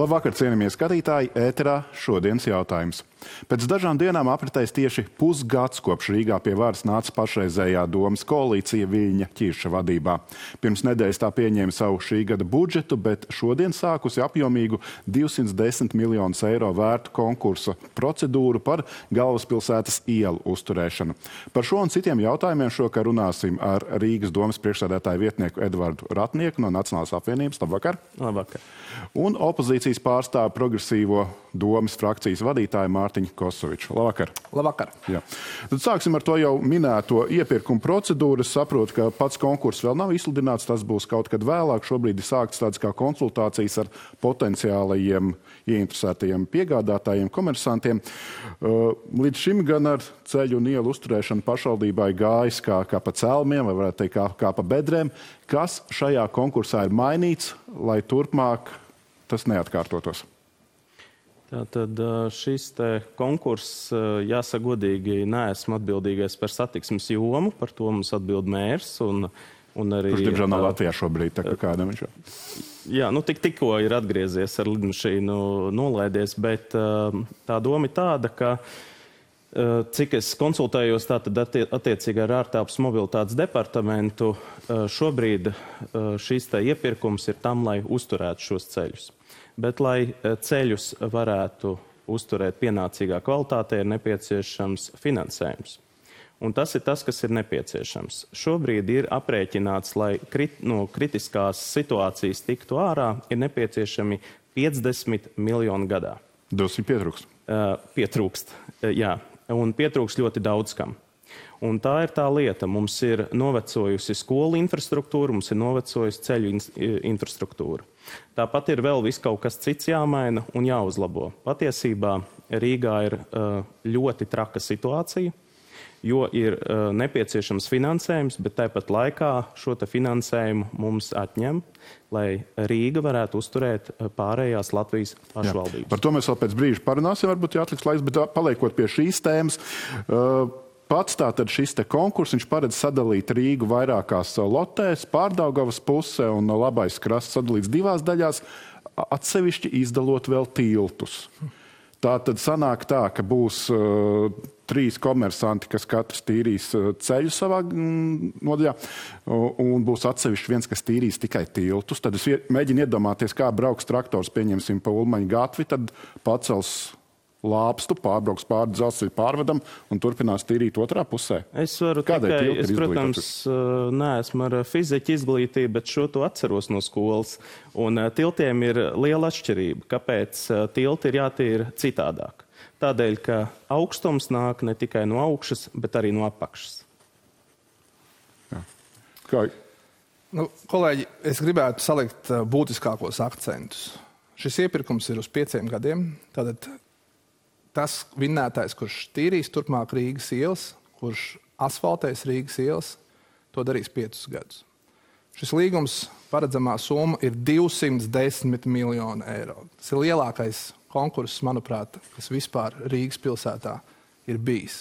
Labvakar, cienījamie skatītāji, ēterā šodienas jautājums. Pēc dažām dienām apritēs tieši pusgads, kopš Rīgā pie varas nāca pašreizējā domas koalīcija Viļņa Ķirša vadībā. Pirms nedēļas tā pieņēma savu šī gada budžetu, bet šodien sākusi apjomīgu 210 miljonus eiro vērtu konkursa procedūru par galvaspilsētas ielu uzturēšanu. Par šo un citiem jautājumiem šokar runāsim ar Rīgas domas priekšsēdētāju vietnieku Edvardu Ratnieku no Nacionālās apvienības. Labvakar! Labvakar! Un opozīcijas pārstāvu progresīvo domas frakcijas vadītāju Mārtiņu Kosoviču. Labvakar! Labvakar! Jā. Tad sāksim ar to jau minēto iepirkumu procedūru. Es saprotu, ka pats konkurss vēl nav izsludināts, tas būs kaut kad vēlāk. Šobrīd ir sāktas tādas kā konsultācijas ar potenciālajiem ieinteresētajiem piegādātājiem, komersantiem. Līdz šim gan ar ceļu un ielu uzturēšanu pašvaldībai gājis kā pa celmiem, vai varētu teikt kā pa bedrēm. Kas šajā konkursā ir mainīts, lai turpmāk tas neatkārtotos? Tātad šis konkurss, jāsaka godīgi, neesmu atbildīgais par satiksmes jomu, par to mums atbild mērs un arī... Kurš, diemžēl, nav Latvijā šobrīd, tā kā kādam viņš jau? Jā, tikko ir atgriezies ar lidmašīnu nolaidies, bet tā doma ir tāda, ka cik es konsultējos tātad attiecīgi ar ārtelpas mobilitātes departamentu, šobrīd šis iepirkums ir tam, lai uzturētu šos ceļus. Bet, lai ceļus varētu uzturēt pienācīgā kvalitātē, ir nepieciešams finansējums. Un tas ir tas, kas ir nepieciešams. Šobrīd ir aprēķināts, lai no kritiskās situācijas tiktu ārā, ir nepieciešami 50 miljoni gadā. Dosim pietrūkst. Pietrūkst, jā. Un pietrūkst ļoti daudz kam. Un tā ir tā lieta. Mums ir novecojusi skolu infrastruktūra, mums ir novecojusi ceļu infrastruktūra. Tāpat ir vēl viss kaut kas cits jāmaina un jāuzlabo. Patiesībā Rīgā ir ļoti traka situācija, jo ir nepieciešams finansējums, bet tāpat laikā šo finansējumu mums atņem, lai Rīga varētu uzturēt pārējās Latvijas pašvaldības. Jā. Par to mēs vēl pēc brīža parunāsim, varbūt jāatliks laiks, bet paliekot pie šīs tēmas, pats tātad šis konkurss, viņš paredz sadalīt Rīgu vairākās lotēs, Pārdaugavas puse un Labais krasts sadalīts divās daļās, atsevišķi izdalot vēl tiltus. Tātad sanāk tā, ka būs 3 komersanti, kas katrs tīrīs ceļu savā nodaļā, un būs atsevišķi viens, kas tīrīs tikai tiltus. Tad es mēģinu iedomāties, kā brauks traktors, pieņemsim pa Ulmaņa gatvi, tad pacels lāpstu, pārbrauks pāri dzelzceļa pārvadam un turpinās tīrīt otrā pusē. Es varu tikai, protams, neesmu ar fiziķu izglītību, bet šo to atceros no skolas. Un tiltiem ir liela atšķirība. Kāpēc tilti ir jātīra citādāk? Tādēļ, ka augstums nāk ne tikai no augšas, bet arī no apakšas. Jā. Kā? Kolēģi, es gribētu salikt būtiskākos akcentus. Šis iepirkums ir uz 5 gadiem. Tātad tas vinnētājs, kurš tīrīs turpmāk Rīgas ielas, kurš asfaltēs Rīgas ielas, to darīs 5 gadus. Šis līgums paredzamā summa ir 210 miljoni eiro. Tas ir lielākais konkurss, manuprāt, kas vispār Rīgas pilsētā ir bijis.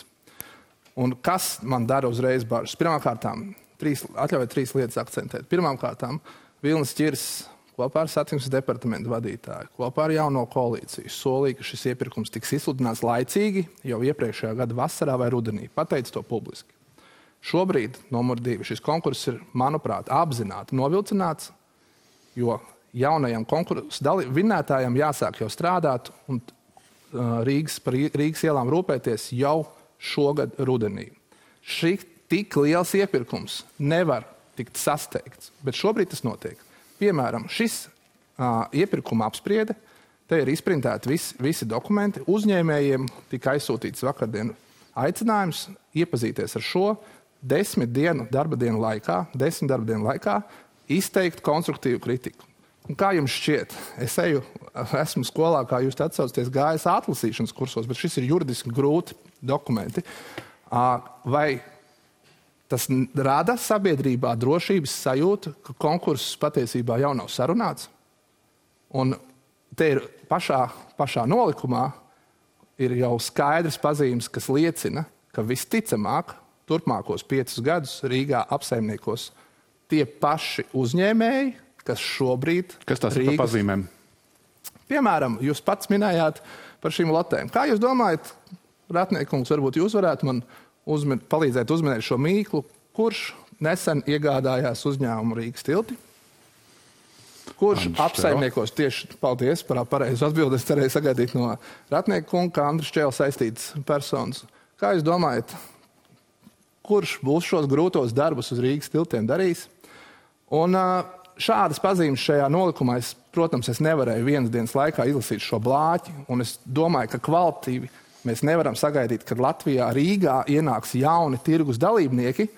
Un kas man dara uzreiz bažas? Pirmkārtām, atļaujiet 3 lietas akcentēt. Pirmkārtām, Vilnis Ķirs kopā ar satiksmes departamentu vadītāju, kopā ar jauno koalīciju solīja, ka šis iepirkums tiks izsludināts laicīgi jau iepriekšējā gada vasarā vai rudenī. Pateica to publiski. Šobrīd, numur 2, šis konkurss ir, manuprāt, apzināti novilcināts, jo jaunajam konkursu vinnētājam jāsāk jau strādāt un par Rīgas ielām rūpēties jau šogad rudenī. Šī tik liels iepirkums nevar tikt sasteigts, bet šobrīd tas notiek. Piemēram, šis iepirkuma apspriede, te ir izprintēti visi dokumenti. Uzņēmējiem tika aizsūtīts vakardien aicinājums iepazīties ar šo 10 darba dienu laikā izteikt konstruktīvu kritiku. Un kā jums šķiet? Esmu skolā, kā jūs atsaucaties, gājis atlasīšanas kursos, bet šis ir juridiski grūti dokumenti. Vai tas rada sabiedrībā drošības sajūtu, ka konkurss patiesībā jau nav sarunāts? Un te ir pašā nolikumā ir jau skaidrs pazīmes, kas liecina, ka visticamāk turpmākos 5 gadus Rīgā apsaimniekos tie paši uzņēmēji, kas šobrīd... Kas tās ir pa pazīmēm? Piemēram, jūs pats minējāt par šīm lotēm. Kā jūs domājat, Ratniekungs, varbūt jūs varētu man palīdzēt uzminēt šo mīklu, kurš nesen iegādājās uzņēmumu Rīgas tilti? Kurš apsaimniekos tieši, paldies par pareizu atbildi, es cerēju sagaidīt no Ratniekunga, kā Andris Čēle saistīts personas. Kā jūs domājat, kurš būs šos grūtos darbus uz Rīgas tiltiem darījis? Un šādas pazīmes šajā nolikumā, protams, es nevarēju vienas dienas laikā izlasīt šo blāķi, un es domāju, ka kvalitīvi mēs nevaram sagaidīt, kad Latvijā Rīgā ienāks jauni tirgus dalībnieki,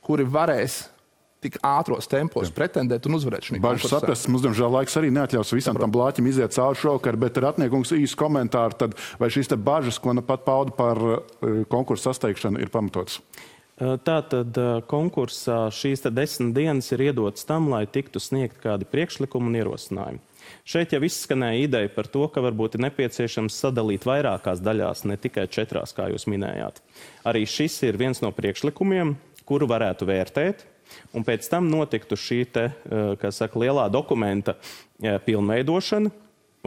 kuri varēs tik ātros tempos pretendēt un uzvarēt šī konkursā. Bažas saprast, mums, diemžēl, laiks arī neatļaus visam tam blāķim iziet cauri šovakar, bet Ratniekungs īsu komentāru, tad vai šīs te bažas, ko pat pauda par konkursu sasteigšanu, ir pamatotas? Tātad konkursā šīs 10 dienas ir iedotas tam, lai tiktu sniegt kādi priekšlikumi un ierosinājumi. Šeit jau izskanēja ideja par to, ka varbūt ir nepieciešams sadalīt vairākās daļās, ne tikai 4, kā jūs minējāt. Arī šis ir viens no priekšlikumiem, kuru varētu vērtēt, un pēc tam notiktu šī lielā dokumenta pilnveidošana,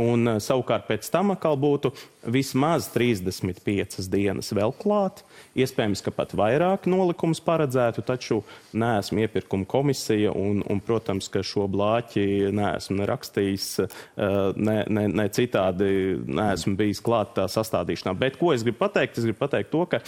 un savukārt pēc tam atkal būtu vismaz 35 dienas vēl klāt. Iespējams, ka pat vairāk nolikums paredzētu, taču neesmu iepirkuma komisija un, protams, ka šo blāķi neesmu nerakstījis, ne citādi neesmu bijis klāt tā sastādīšanā. Bet ko es gribu pateikt? Es gribu pateikt to, ka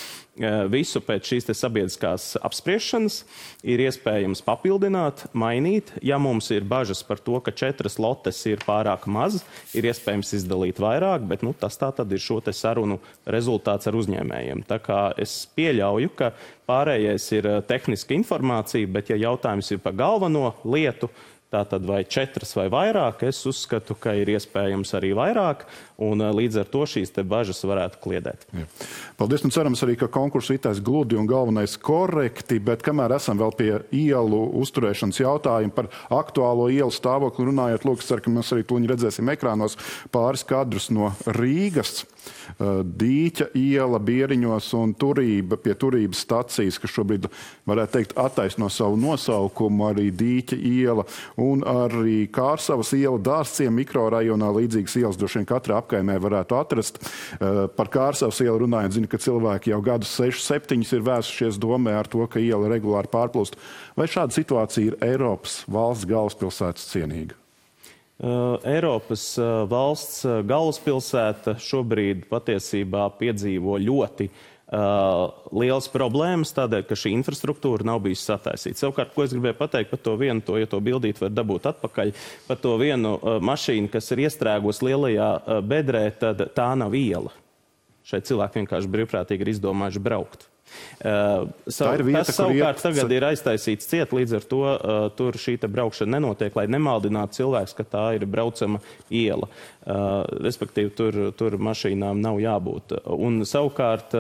visu pēc šīs sabiedriskās apspriešanas ir iespējams papildināt, mainīt. Ja mums ir bažas par to, ka 4 lotes ir pārāk maz, ir iespējams izdalīt vairāk, bet tas tā tad ir šo sarunu rezultāts ar uzņēmējiem. Tā kā es pieļauju, ka pārējais ir tehniska informācija, bet ja jautājums ir par galveno lietu, tātad vai 4 vai vairāk, es uzskatu, ka ir iespējams arī vairāk, un līdz ar to šīs bažas varētu kliedēt. Jā. Paldies, un cerams arī, ka konkurss ritēs gludi un galvenais korekti, bet kamēr esam vēl pie ielu uzturēšanas jautājumu par aktuālo ielu stāvokli runājot, lūk, es ceru, ka mēs arī tūlīt redzēsim ekrānos pāris kadrus no Rīgas. Dīķa iela Bieriņos un Turība pie Turības stacijas, kas šobrīd, varētu teikt, attaisno savu nosaukumu, arī Dīķa iela un arī Kārsavas iela Dārzciem mikrorajonā līdzīgas ielas droši vien katrā apkaimē varētu atrast. Par Kārsavas ielu runājot, zinu, ka cilvēki jau gadus 6-7 ir vērsušies domē ar to, ka iela regulāri pārplūst. Vai šāda situācija ir Eiropas valsts galvaspilsētas cienīga? Eiropas valsts galvaspilsēta šobrīd patiesībā piedzīvo ļoti liels problēmas, tādēļ, ka šī infrastruktūra nav bijusi sataisīta. Savukārt, ko es gribēju pateikt par to vienu, ja to bildīt var dabūt atpakaļ, par to vienu mašīnu, kas ir iestrēgusi lielajā bedrē, tad tā nav iela. Šeit cilvēki vienkārši brīvprātīgi ir izdomājuši braukt. Tas savukārt tagad ir aiztaisīts ciet, līdz ar to tur šī braukšana nenotiek, lai nemaldinātu cilvēks, ka tā ir braucama iela. Respektīvi, tur mašīnām nav jābūt. Un savukārt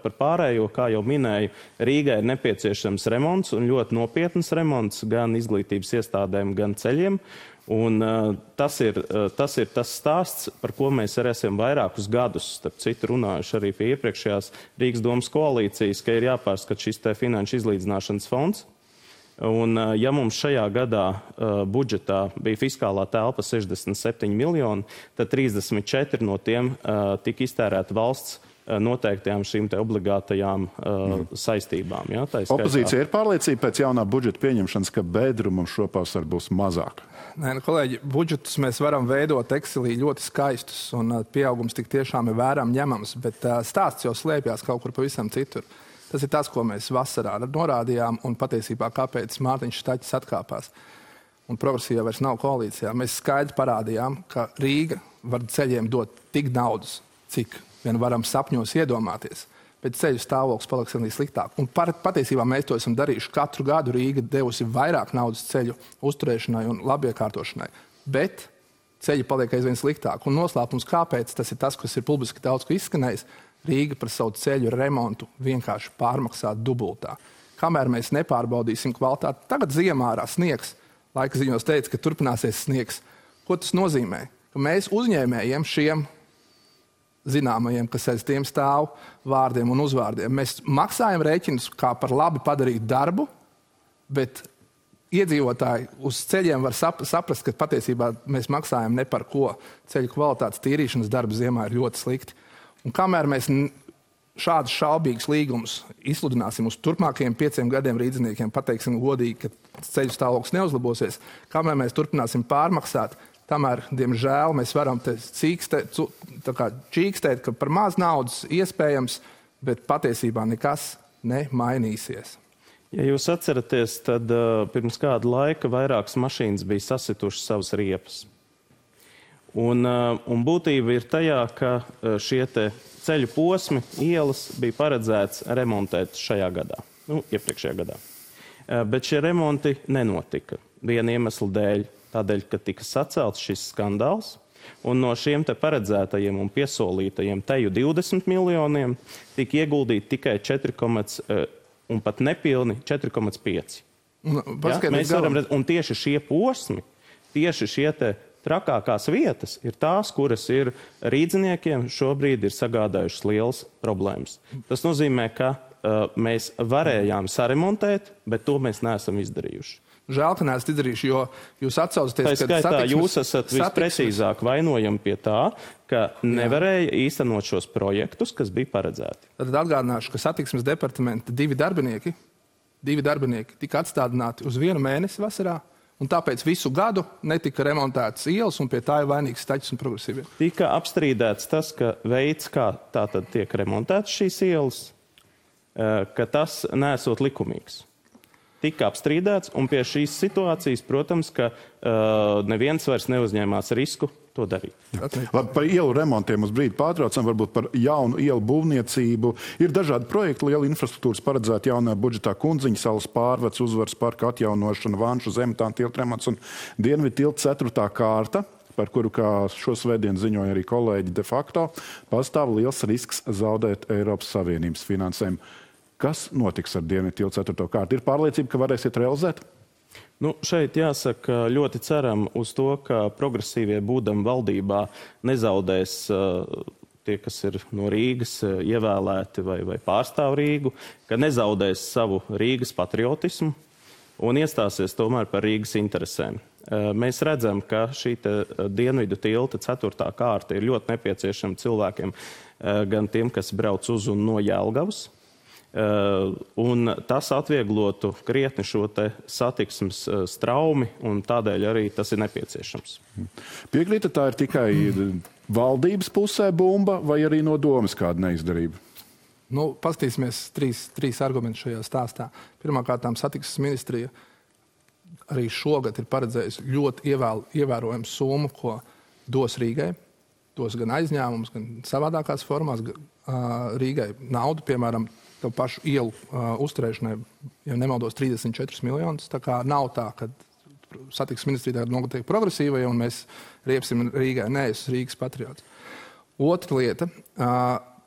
par pārējo, kā jau minēju, Rīgai ir nepieciešams remonts un ļoti nopietnas remonts gan izglītības iestādēm, gan ceļiem. Un tas ir tas stāsts, par ko mēs arī esam vairākus gadus, starp citu runājuši arī pie iepriekšējās Rīgas domas koalīcijas, ka ir jāpārskat šis finanšu izlīdzināšanas fonds. Un ja mums šajā gadā budžetā bija fiskālā telpa 67 miljoni, tad 34 no tiem tika iztērēta valsts noteiktajām šīm obligātajām saistībām. Ja? Opozīcija ir pārliecība pēc jaunā budžeta pieņemšanas, ka bedrumam šopavasar būs mazāk? Nē, kolēģi, budžetus mēs varam veidot Excelī ļoti skaistus, un pieaugums tik tiešām ir vērām ņemams, bet stāsts jau slēpjās kaut kur pavisam citur. Tas ir tas, ko mēs vasarā norādījām, un patiesībā kāpēc Mārtiņš Štaķis atkāpās. Un progresīva vairs nav koalīcijā. Mēs skaidri parādījām, ka Rīga var ceļiem dot tik naudas, cik vien varam sapņos iedomāties, bet ceļu stāvoklis paliks arī sliktāk. Un patiesībā mēs to esam darījuši. Katru gadu Rīga devusi vairāk naudas ceļu uzturēšanai un labiekārtošanai, bet ceļi paliek aizvien sliktāk. Un noslēpums, kāpēc, tas ir tas, kas ir publiski daudz ko izskanējis, Rīga par savu ceļu remontu vienkārši pārmaksā dubultā. Kamēr mēs nepārbaudīsim kvalitāti, tagad ziemā ārā sniegs, laika ziņos teica, ka turpināsies sniegs. Ko tas nozīmē? Ka mēs uzņēmējiem šiem zināmajiem, kas aiz tiem stāv vārdiem un uzvārdiem. Mēs maksājam rēķinus kā par labi padarītu darbu, bet iedzīvotāji uz ceļiem var saprast, ka patiesībā mēs maksājam ne par ko. Ceļu kvalitātes tīrīšanas darba ziemā ir ļoti slikti. Un kamēr mēs šādus šaubīgus līgumus izsludināsim uz turpmākajiem 5 gadiem rīdzniekiem, pateiksim godīgi, ka ceļu stāvoklis neuzlabosies, kamēr mēs turpināsim pārmaksāt, tamēr, diemžēl, mēs varam te čīkstēt, ka par maz naudas iespējams, bet patiesībā nekas nemainīsies. Ja jūs atceraties, tad pirms kāda laika vairākas mašīnas bija sasitušas savas riepas. Un būtība ir tajā, ka šie te ceļu posmi, ielas bija paredzēts remontēt šajā gadā, iepriekšējā gadā. Bet šie remonti nenotika viena iemesla dēļ, tādēļ, ka tika sacelts šis skandāls, un no šiem te paredzētajiem un piesolītajiem teju 20 miljoniem tika ieguldīti tikai 4, un pat nepilni 4,5. Un tieši šie posmi, tieši šie te trakākās vietas ir tās, kuras ir rīdziniekiem šobrīd ir sagādājušas lielas problēmas. Tas nozīmē, ka mēs varējām saremontēt, bet to mēs neesam izdarījuši. Žēl, ka neesat izdarījuši, jo jūs atsaucaties, ka skaitā jūs esat visprecīzāk vainojami pie tā, ka nevarēja īstenot šos projektus, kas bija paredzēti. Tad atgādināšu, ka satiksmes departamenta 2 darbinieki tika atstādināti uz 1 mēnesi vasarā, un tāpēc visu gadu netika remontētas ielas, un pie tā ir vainīgs Staķis un Progresīvie. Tika apstrīdēts tas, ka veids, kā tātad tiek remontētas šīs ielas, ka tas nesot likumīgs. Tika apstrīdēts, un pie šīs situācijas, protams, ka neviens vairs neuzņēmās risku to darīt. Labi, par ielu remontiem uz brīdi pārtraucam, varbūt par jaunu ielu būvniecību. Ir dažādi projekti, liela infrastruktūras paredzēta jaunajā budžetā Kundziņa salas pārvads, Uzvaras parka atjaunošana, Vanšu Zemtāna tilta remonts un Dienvidu tilta 4. kārta, par kuru, kā šo svētdienu ziņoja arī kolēģi de facto, pastāv liels risks zaudēt Eiropas Savienības finansējumu. Kas notiks ar Dienvidu tilta 4. kārtu? Ir pārliecība, ka varēsiet realizēt? Šeit jāsaka, ļoti ceram uz to, ka progresīvie būdam valdībā nezaudēs tie, kas ir no Rīgas ievēlēti vai pārstāv Rīgu, ka nezaudēs savu Rīgas patriotismu un iestāsies tomēr par Rīgas interesēm. Mēs redzam, ka šī Dienvidu tilta 4. kārta ir ļoti nepieciešama cilvēkiem, gan tiem, kas brauc uz un no Jelgavas. Un tas atvieglotu krietni šo te satiksmes straumi, un tādēļ arī tas ir nepieciešams. Piekrītat, tā ir tikai valdības pusē bumba vai arī no domas kāda neizdarība? Paskatīsimies trīs argumentus šajā stāstā. Pirmkārt, satiksmes ministrija arī šogad ir paredzējusi ļoti ievērojamu summu, ko dos Rīgai. Dos gan aizņēmumus, gan savādākās formās Rīgai naudu, piemēram, to pašu ielu uzturēšanai, ja nemaldos, 34 miljonus. Tā kā nav tā, ka satiksmes ministrija tagad notiek progresīvai un mēs riepsim Rīgai. Nē, es esmu Rīgas patriots. Otra lieta,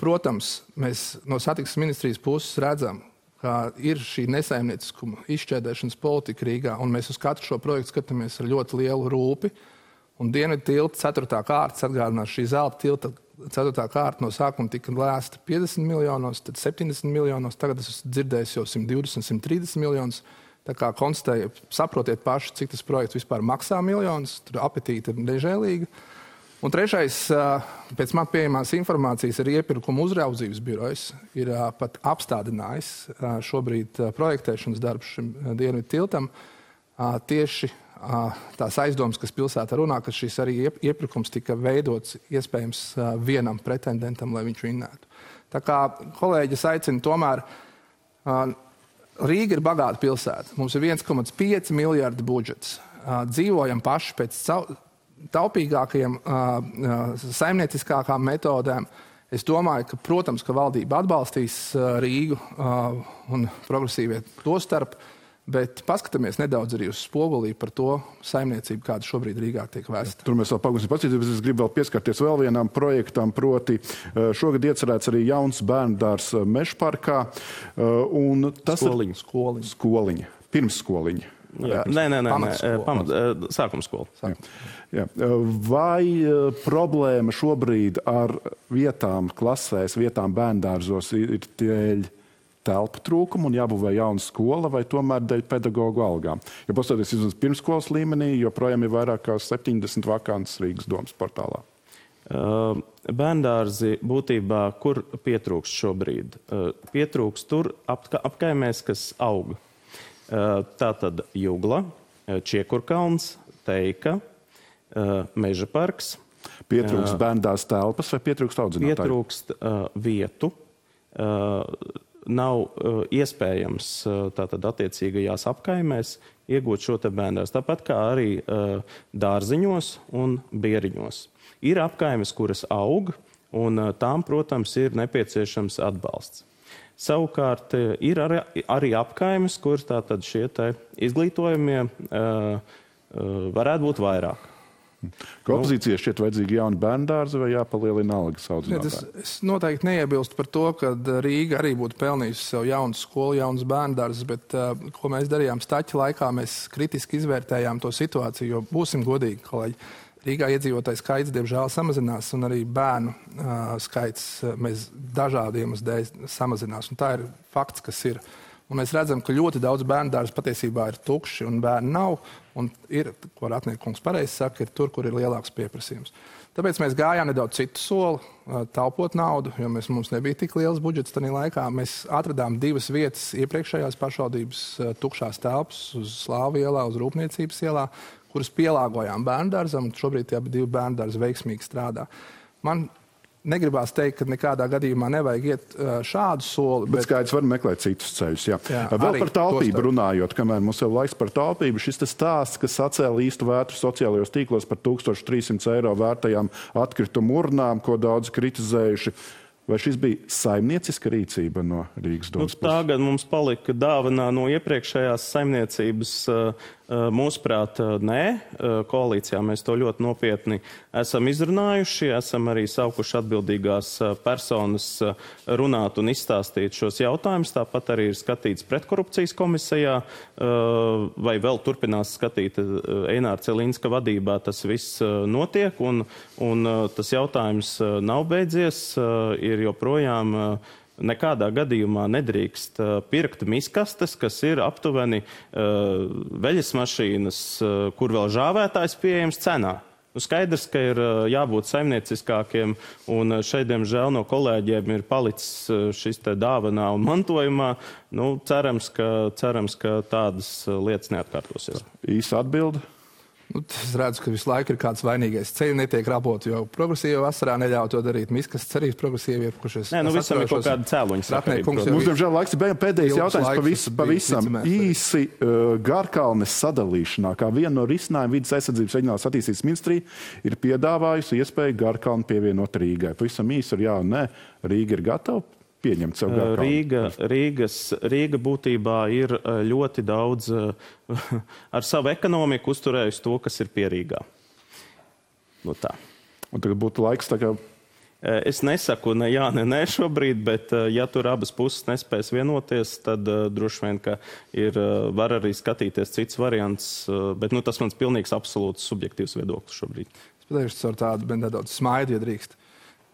protams, mēs no satiksmes ministrijas puses redzam, ka ir šī nesaimnieciskuma izšķēdēšanas politika Rīgā, un mēs uz katru šo projektu skatāmies ar ļoti lielu rūpi. Un Dienvidu tilta 4. kārtas atgādinās šī zelta tilta 4. kārta no sākuma tika lēsta 50 miljonos, tad 70 miljonos, tagad es dzirdēju jau 120, 130 miljonus. Tā kā konstatēju, saprotiet paši, cik tas projekts vispār maksā miljonus, tur apetīte ir nežēlīga. Un trešais, pēc man pieejamās informācijas, ir iepirkuma uzraudzības birojs, ir pat apstādinājis šobrīd projektēšanas darbs šim Dienvidu tiltam. Tieši tās aizdomas, kas pilsētā runā, ka šis arī iepirkums tika veidots iespējams vienam pretendentam, lai viņš vinnētu. Tā kā kolēģis aicina tomēr, Rīga ir bagāta pilsēta. Mums ir 1,5 miljardu budžets. Dzīvojam paši pēc taupīgākajiem, saimnieciskākām metodēm. Es domāju, ka, protams, ka valdība atbalstīs Rīgu un progresīvie to starp, bet paskatāmies nedaudz arī uz spogulī par to saimniecību, kāda šobrīd Rīgā tiek vēsta. Tur mēs vēl pagūsim paskatīties, bet es gribu vēl pieskarties vēl vienam projektam, proti šogad iecerēts arī jauns bērndārs Mežparkā. Un tas Skoliņa. Pirmsskoliņa. Sākumskola. Jā. Vai problēma šobrīd ar vietām klasēs, vietām bērndārzos ir dēļ telpu trūkumu un jābūvē jauna skola vai tomēr dēļ pedagoģu algām? Jo paskatoties uz pirmskolas līmenī, joprojām ir vairāk kā 70 vakances Rīgas domas portālā. Bērndārzi būtībā, kur pietrūkst šobrīd? Pietrūkst tur apkaimēs, kas aug. Tātad Jugla, Čiekurkalns, Teika, Meža parks. Pietrūkst bērndārs telpas vai pietrūkst audzinātāju? Pietrūkst vietu. Nav iespējams tātad attiecīgajās apkaimēs iegūt šo te bērndārzu. Tāpat kā arī dārziņos un bieriņos. Ir apkaimes, kuras aug, un tām, protams, ir nepieciešams atbalsts. Savukārt ir arī apkaimes, kuras tātad šie te izglītojumie varētu būt vairāk. Ka opozīcijai šķiet vajadzīgi jauni bērndārzi vai jāpalielina algas audzinātāji? Es noteikti neiebilstu par to, ka Rīga arī būtu pelnījusi sev jaunu skolu, jaunas bērndārzes, bet ko mēs darījām Staķa laikā, mēs kritiski izvērtējām to situāciju, jo būsim godīgi, kolēģi. Rīgā iedzīvotāju skaits, diemžēl, samazinās, un arī bērnu skaits mēs dažādiem dēļ samazinās. Un tā ir fakts, kas ir. Un mēs redzam, ka ļoti daudz bērndārzu patiesībā ir tukši un bērni nav. Un ir, ko Ratniekungs pareizi saka, ir tur, kur ir lielāks pieprasījums. Tāpēc mēs gājām nedaudz citu soli, taupot naudu, jo mums nebija tik liels budžets tajā laikā. Mēs atradām 2 vietas iepriekšējās pašvaldības tukšās telpas uz Slāvu ielā, uz Rūpniecības ielā, kuras pielāgojām bērndārzam, un šobrīd tie 2 bērndārzi veiksmīgi strādā. Man negribās teikt, ka nekādā gadījumā nevajag iet šādu soli. Bet skaidrs var meklēt citus ceļus. Jā. Vēl par taupību runājot, kamēr mums jau laiks par taupību, šis stāsts, kas sacēla īstu vētru sociālajos tīklos par 1300 eiro vērtajām atkritumu urnām, ko daudz kritizējuši. Vai šis bija saimnieciska rīcība no Rīgas domas puses? Tagad mums palika dāvanā no iepriekšējās saimniecības. Mūsuprāt, nē. Koalīcijā mēs to ļoti nopietni esam izrunājuši, esam arī saukuši atbildīgās personas runāt un izstāstīt šos jautājumus. Tāpat arī ir skatīts pretkorupcijas komisijā, vai vēl turpinās skatīt Eināra Celinska vadībā. Tas viss notiek, un tas jautājums nav beidzies, ir joprojām nekādā gadījumā nedrīkst pirkt miskastes, kas ir aptuveni veļas mašīnas, kur vēl žāvētājs pieejams cenā. Skaidrs, ka ir jābūt saimnieciskākiem, un šeit, diemžēl, no kolēģiem ir palicis šis te dāvanā un mantojumā. Cerams, ka tādas lietas neatkārtosies. Īsa atbilde? Es redzu, ka visu laiku ir kāds vainīgais. Ceļi netiek raboti, jo progresīvi vasarā neļauj to darīt. Miskas cerības progresīvi iepušies. Visam ir kaut kāda cēloņa sakarība. Mums, diemžēl, laiks ir pēdējais jautājums pavisam īsi Garkalnes sadalīšanā. Kā viena no risinājuma vidas aizsardzības reģionālās attīstības ministrija ir piedāvājusi iespēju Garkalni pievienot Rīgai. Pavisam īsi ar jā un nē. Rīga ir gatava pieņemt sev Garkalni. Rīga būtībā ir ļoti daudz ar savu ekonomiku uzturējusi to, kas ir pie Rīgā. Tā. Un tagad būtu laiks tā kā... Es nesaku ne jā, ne nē šobrīd, bet ja tur abas puses nespēs vienoties, tad droši vien, ka var arī skatīties cits variants, bet tas mans pilnīgs absolūts subjektīvs viedoklis šobrīd. Es pateikšu ar tādu nedaudz smaidu, ja drīkst.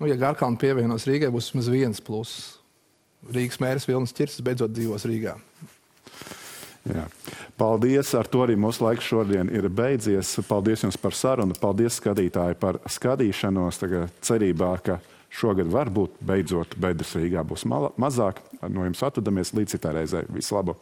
Ja Garkalni pievienos Rīgai, būs vismaz viens pluss. Rīgas mērs Vilnis Ķirsis beidzot dzīvos Rīgā. Jā. Paldies, ar to arī mūsu laiks šodien ir beidzies. Paldies jums par sarunu, paldies skatītāji par skatīšanos. Tagad cerībā, ka šogad varbūt beidzot bedres Rīgā būs mazāk. No jums atvadamies līdz citai reizei. Visu labu!